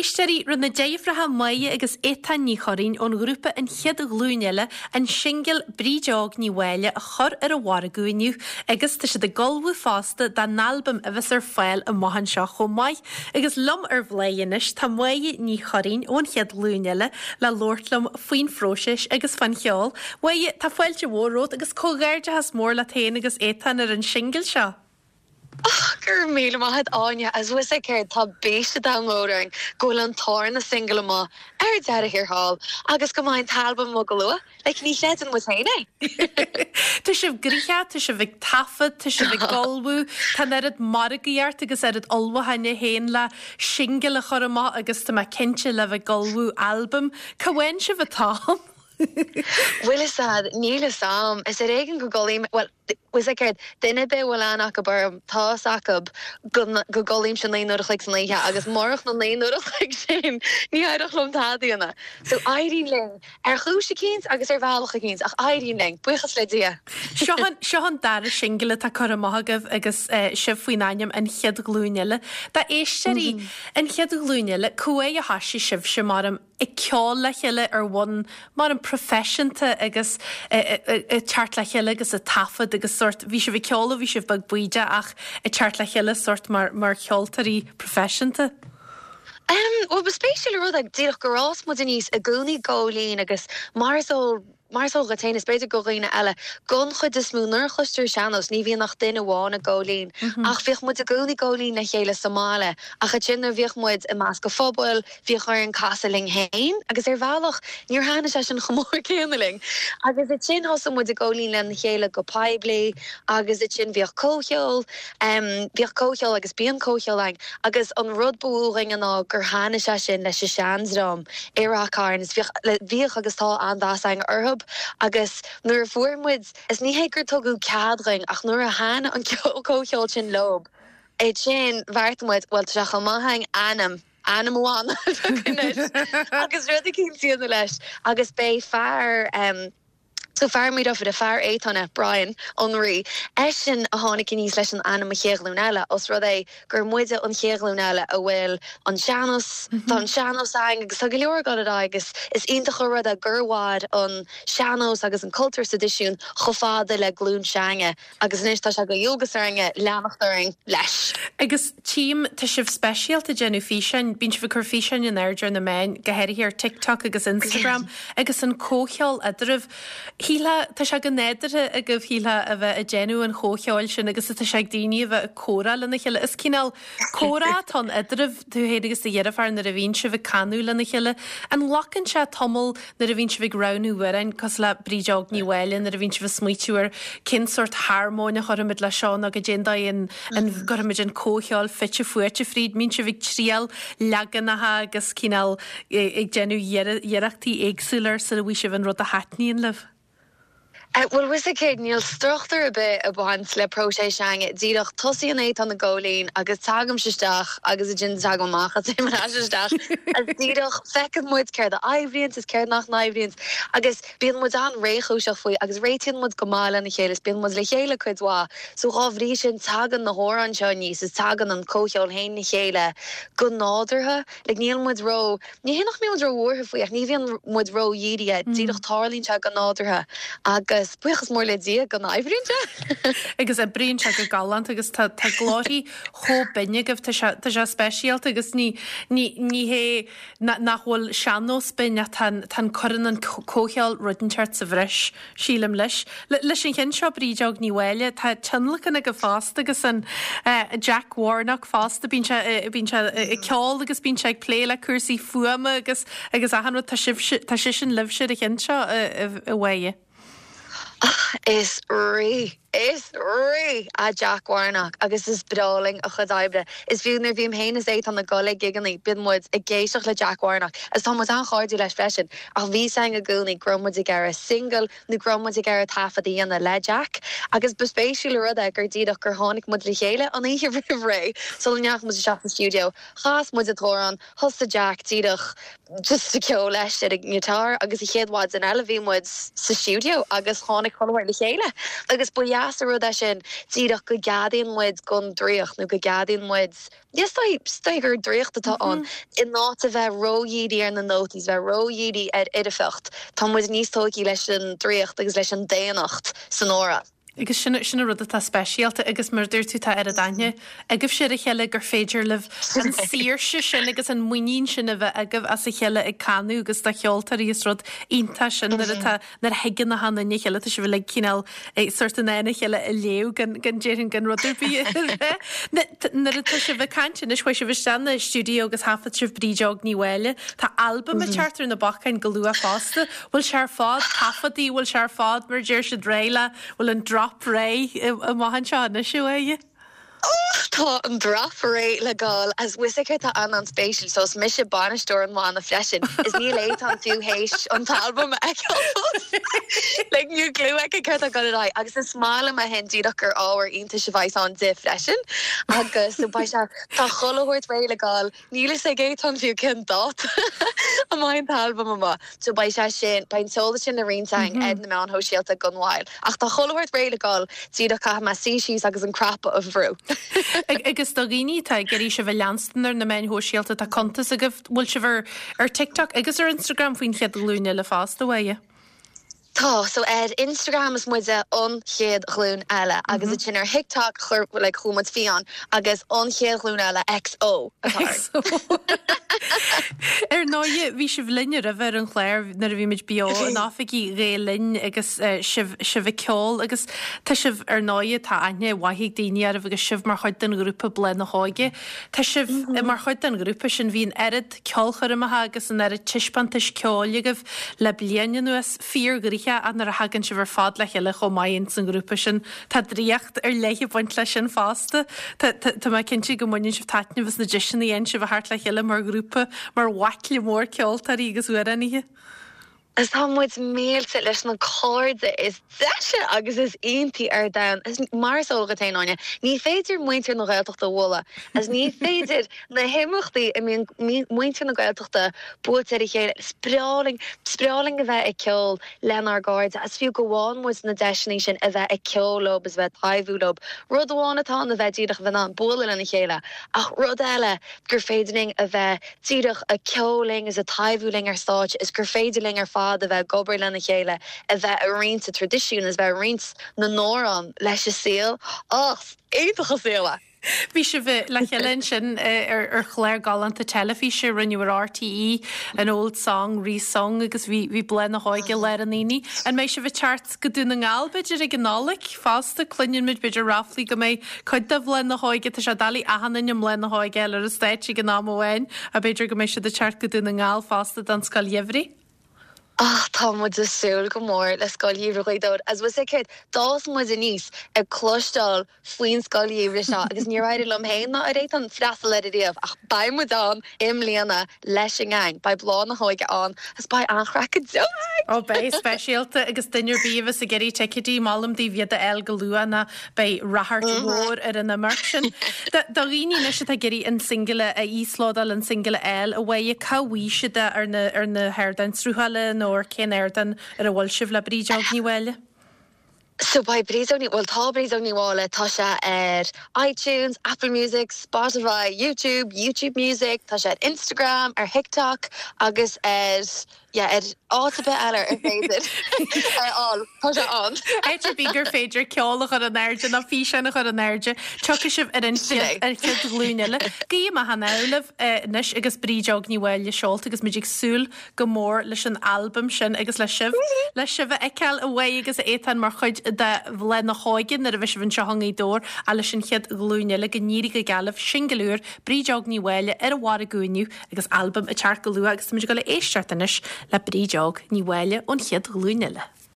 Éisteoirí, rinne na deirfiúracha Máire agus Étáin Ní Churraoin ón ghrúpa An Chéad Ghlúin Eile an singil Bríd Óg Ní Mháille a chur ar an mhargadh inniu agus tá siad ag ullmhú fosta dá n-albam a bheas ar fáil amach anseo chomh maith. Agus liom ar Bhláth anois tá Máire Ní Churraoin ón Chéad Ghlúin Eile le labhairt liom faoin phróiseas agus fán cheol. Máire, tá fáilte mhór romhat agus comhghairdeachas mór leat féin agus Étáin ar an singil seo. Och, go raibh míle maith a't Áine, agus bhfuil 'fhios a'd céard, tá bís an domhain mhóir orainn go bhfuil an tarna singil amuigh ar deireadh thiar thall agus go mbeidh an t-albam amuigh go luath. Like, ní chreideann muid féin é. Tá sibh gnoitheach, tá sibh ag taifead, tá sibh ag ullmhú, tá an oiread margaíocht agus oiread ullmhúcháin é féin le singil a chur amach agus tá mé cinnte le bheith ag ullmhú albaim. Cá bhfaigheann sibh an t-am? Bhfuil 'fhios a'd, níl 'fhios a'm. Is ar éigean go gcodlaím, bhuel, bhfuil 'fhios a'd céard, duine ar bith a bhfuil aithne acu orm, tá 'fhios acu go, go gcodlaímse 9 n-uair a chloig san oíche agus murach na 9 n-uair a chloig sin, ní éireodh liom tada a dhéanamh. So, éiríonn linn, ar chúis eicínt agus ar bhealach eicínt, ach éiríonn linn, buíochas le Dia. Seo an, seo an dara singil atá curtha amach agaibh agus sibh faoin ainm An Chéad Ghlúin Eile. Do éisteoirí, An Chéad Ghlúin Eile, cá huair a thoisigh sibhse mar ag ceol le chéile ar bhonn mar an proifisiúnta agus ag teacht le chéile agus ag taifead agus sórt, bhí sibh ag ceol ó bhí sibh beag bídeach ach ag teacht le chéile sórt mar, mar cheoltóirí proifisiúnta. Em, bhuel ba spéisiúil an rud é díreach gur fhás muid aníos i gcónaí ag góilín agus mar is eol, Mar is eol dhuit féin, is b'fhéidir do dhaoine eile, don chuid is mó, nuair a chloistear sean-nós, ní bhíonn ach duine amháin ag góilín. Ach bhíodh muid i gcónaí ag góilín le chéile sa mbaile. Ach ansin nuair a bhíodh muid i measc an phobail, bhíodh orainn casadh linn féin agus ar bhealach níor thaitnigh sé sin chomh mór céanna linn. Agus ansin thosaigh muid ag góilín lena chéile go poiblí agus ansin bhíodh comhcheol, bhíodh comhcheol agus bíonn comhcheol againn agus an rud ba mhó dhúinn ná gur thaitnigh sé sin leis an seandream. I Rath Cairn is bhíodh, bhíodh agus tá an-mheas againn orthub agus nuair a fuair muid, is ní hé gur tugadh cead dhuinn ach nuair a thaitnigh an ceol, comhcheol sin leob, ansin bheartaigh muid, bhuel tá sé chomh maith againn ainm, ainm an bhanna a phiocadh anois agus rud eicínt a dhéanamh leis agus b'é fear, So fear Maigh Dofada, fear Étáin, Brian, an Rí, eisean a tháinig aníos leis an ainm An Chéad Ghlúin Eile, os rud é gur muide an chéad ghlúin eile a bhfuil an sean-nós, tá an sean-nós againn agus tá go leor ag dul ar aghaidh agus is iontach an rud é gur mhair an sean-nós agus an cultúr sa traidisiún chomh fada le glúin s'againne agus anois tá sé de dhualgas orainne leanacht orainn leis. Agus tchím, tá sibh speisialta ag déanamh físeáin, bíonn sibh ag cur físeáin in airde ar na meáin, go háirithe ar TikTok agus Instagram, agus an comhcheol eadraibh. Shílfeá, tá sé go nádúrtha agaibh, shílfeá, a bheith ag déanamh an chomhcheoil sin agus atá sé ag daoine a bheith ag comhrá lena chéile. Is cineál comhrá atá ann eadraibh, tú féin agus do dheirfiúr, nuair a bhíonn sibh ag canadh lena chéile. An nglacann sé tamall nuair a bhíonn sibh ag roghnú amhráin, cosúil le Bríd Óg Ní Mháille, nuair a bhíonn sibh ag smaoitiú ar cén sórt harmóin a chuirfimid le seo nó goidé an dóigh an an gcuirfimid an comhcheol fite fuaite fríd, mbíonn sibh ag triail leaganacha agus cineál ag déanamh iarrachtaí éagsúla ar sula bhfaighidh sibh an rud a thaitníonn libh? Bhuel, bhfuil 'fhios a'd céard, níl struchtúr ar bith ag baint le próiseas s'againne. Díreach, tosaíonn Étáin ag góilín agus tagaimse isteach agus ansin tagaim amach agus téim ar ais isteach agus díreach feiceann muid céard a oibríonns is céard nach n-oibríonns agus bíonn muid an-réchúiseach faoi agus réitíonn muid go maith lena chéile is bíonn muid le chéile cuid mhaith. So dhá bhrí sin tagann na hamhráin seo aníos is tagann an comhcheol féin le chéile go nádúrtha. Like níl muid ró, ní hé nach mbíonn muid ró-bhuartha faoi ach ní bhíonn muid ró-dhírithe, díreach tarlaíonn sé go nádúrtha agus buíochas mór le Dia go n-oibríonn sé. Agus oibríonn sé go galánta agus tá tá glórthaí chomh binn agaibh, tá sé tá sé speisialta agus ní ní ní hé nach bhfuil sean-nós binn ach tá an tá an cuireann an comhcheol rud inteacht sa bhreis. Sílim leis. Leis an cheann seo, Bríd Óg Ní Mháille, tá tionlacan aige fosta agus an Jack Warnock fosta, bíonn sé, bíonn sé ag ceol agus bíonn sé ag plé le cúrsaí fuaime agus agus achan rud, tá sibhse, tá seisean libhse ar an cheann seo, a Mháire. Is rí, is rí é Jack Warnock agus is breá linn a chuid oibre. Is fiú nuair a bhím féin is Étáin ag dul ag gigeannaí, bíonn muid ag éisteacht le Jack Warnock agus tá muid an-chairdiúil leis freisin. Ach bhí 's againn i gcónaí go raibh muid ag iarraidh singil nó go raibh muid ag iarraidh taifead a dhéanamh le Jack agus ba spéisiúil an rud é gur díreach gur tháinig muid le chéile an oíche roimh ré sula ndeachaigh muid isteach sa stiúideo, chas muid an t-amhrán, thosaigh Jack díreach just ag ceol leis ar an ngiotár agus an chéad mhaidin eile bhí muid sa stiúideo agus tháinig chuile shórt le chéile agus ba dheas. deas an rud é sin díreach go gceadaíonn muid don draíocht nó go gceadaíonn muid, is dóigh gur draíocht atá ann, in áit a bheith ródhírithe ar na nótaí is bheith ródhírithe ar fhoirfeacht, tá muid níos tógtha leis an draíocht agus leis an daonnacht san amhrán. Agus sin, sin an rud atá speisialta agus mar a dúirt tú tá oiread aithne agaibhse ar a chéile gur féidir libh an saoirse sin agus an muinín sin a bheith agaibh as a chéile ag canadh agus do cheoltóirí is rud iontach sin nuair atá, nuair a thuigeann achan duine a chéile tá sibh uilig cineál sórt in ann a chéile a léamh gan, gan déarfainn gan rud ar bith a rá. Nuair atá sibh ag caint anois chuaigh sibh isteach na stiúideo agus thaifead sibh Bríd Óg Ní Mháille. Tá albam ag teacht ar na bacáin go luath fosta. Bhfuil sé ar fad taifeadtaí, bhfuil sé ar fad mar a deir siad réidh le, bhfuil an drop réidh amach anseo anois uaidh? Tá an drop réidh le gabháil as bhfuil fhios agat tá an-an-spéisiúil so is mise bainisteoir an bhanna freisin is níl Étáin fiú théis an t-albam a fheiceáil fós. Like níl clue aici céard atá ag dul ar aghaidh agus is maith liom é sin díreach gur ábhar iontais a bheas ann di freisin agus so beidh sé tá chuile shórt réidh le gabháil Níl fhios ag Étáin fiú cén dáta a mbeidh an t-albam amach. So beidh sé sin, beidh an t-eolas sin le roinnt againn ar na meáin shóisialta gan mhoill. Ach tá chuile shórt réidh le gabháil, díreach caithfidh mé suí síos agus an cnaipe a bhrú. Agus do dhaoine atá ag iarraidh sibh a leanstan ar na meáin shóisialta, tá cuntas agaibh, bhfuil sibh ar ar TikTok agus ar Instagram faoin Chéad Ghlúin Eile fosta, bhfuil? Tá, so ar Instagram is muide An Chéad Ghlúin Eile agus ansin ar TikTok chuir like chuaigh muid fiáin agus An Chéad Ghlúin Eile XO atá orainn. Ar ndóighe, bhí sibh linn roimhe ar an chlár nuair a bhí muid beo in oifigí Ghael Linn agus sibh sibh ag ceol agus tá sibh ar ndóighe tá aithne mhaith ag daoine oraibh agus sibh mar chuid den ghrúpa Bláth na hÓige. Tá sibh mar chuid den ghrúpa sin, bhí an oiread ceolchoirmeacha agus an oiread taispeántais ceoil agaibh le bliain anuas, fíorghnoitheach ach nuair a thagann sibh ar fad le chéile chomh maith ins an ghrúpa sin, tá draíocht ar leith ag baint leis sin fosta. Tá, tá, tá mé cinnte go mbaineann sibh taitneamh as na deiseanna a fhaigheann sibh a theacht le chéile mar ghrúpa, mar bhaicle mór ceoltóirí agus amhránaithe. Is tá muid millte leis na cairde is deise agus is iontaí ar domhan. Is mar is eol dhuit féin, Áine, ní féidir muintir na Gaeltachta a mholadh is ní féidir na himeachtaí a mbíonn muintir na Gaeltachta buailte ar a chéile. Is breá linn, is breá linn a bheith ag ceol lenár gcairde is fiú go bhfaigheann muid na deiseanna sin a bheith ag ceol leo is a bheith ag taibhiú leo. Rud amháin atá ann a bheith díreach a bheith in ann bualadh lena chéile ach rud eile gur féidir linn a bheith díreach ag ceol linn is ag taibhiú linn ar stáitse is gur féidir linn ar fad a bheith ag obair lena chéile, a bheith ag roinnt an traidisiúin is a bheith ag roinnt na n-amhrán leis an saol. Á, is iontach an saol é! Bhí sibh le chéile ansin ar chlár galánta teilifíse a rinneadh ar RTÉ, An Old Song Re-Sung agus bhí Bláth na hÓige i lár an aonaigh. An mbeidh sibh ag teacht go Dún na nGall, b'fhéidir, ag an Nollaig fosta? Cluineann muid, b'fhéidir, ráflaí go mbeidh cuid de Bhláth na hÓige, tá sé doiligh achan duine i mBláth na hÓige a fháil ar an stáitse ag an am amháin, ach b'fhéidir go mbeidh siad ag teacht go Dún na nGall fosta don Scoil Gheimhridh. Ach tá muid ag súil go mór le Scoil Gheimhridh Ghaoth Dobhair. As bhfuil 's agat, d'fhás muid aníos ag cloisteáil faoin Scoil Gheimhridh seo agus níor éirigh liom féin ná ar Étáin freastal air ariamh ach beidh muid ann i mbliana leis an ngeaing. Beidh Bláth na hÓige ann agus beidh an-chraic go deo againn! Ó beidh, speisialta agus duine ar bith a bheas ag iarraidh ticéidí, molaim daoibh iad a fháil go luath nó beidh ráchairt mhór ar an imeacht sin. Do dhaoine anois atá ag iarraidh an singile a íoslódáil, an singile a fháil, a Mháire, cá bhfaighidh siad é ar na ar na hardáin sruthála nó ar cén ardán ar a bhfuil sibh le Bríd Óg Ní Mháille? So beidh Bríd Óg Ní, bhuel tá Bríd Óg Ní Mháille, tá sé ar iTunes, Apple Music, Spotify, YouTube, YouTube Music, tá sé ar Instagram, ar TikTok agus ar, yeah, ar áit ar bith eile ar féidir a fháil, tá sé ann. Áit ar bith gur féidir ceol a chur in airde nó físeán a chur in airde, tiocfaidh sibh ar an chéad, ar chéad ghlúin eile. Guím achan ádh libh anois agus Bríd Óg Ní Mháille seolta agus muid ag súil go mór leis an albam sin agus le sibh, le sibh a fheiceáil a Mháire agus a Étáin mar chuid de Bhláth na hÓige nuair a bheidh sibh anseo i nGaoth Dobhair ach leis an chéad ghlúin eile go n-éirí go geal libh, singil úr, Bríd Óg Ní Mháille ar an mhargadh inniu agus albam ag teacht go luath agus táimid ag dul a éisteacht anois le Bríd Óg Ní Mháille ón chéad ghlúin eile.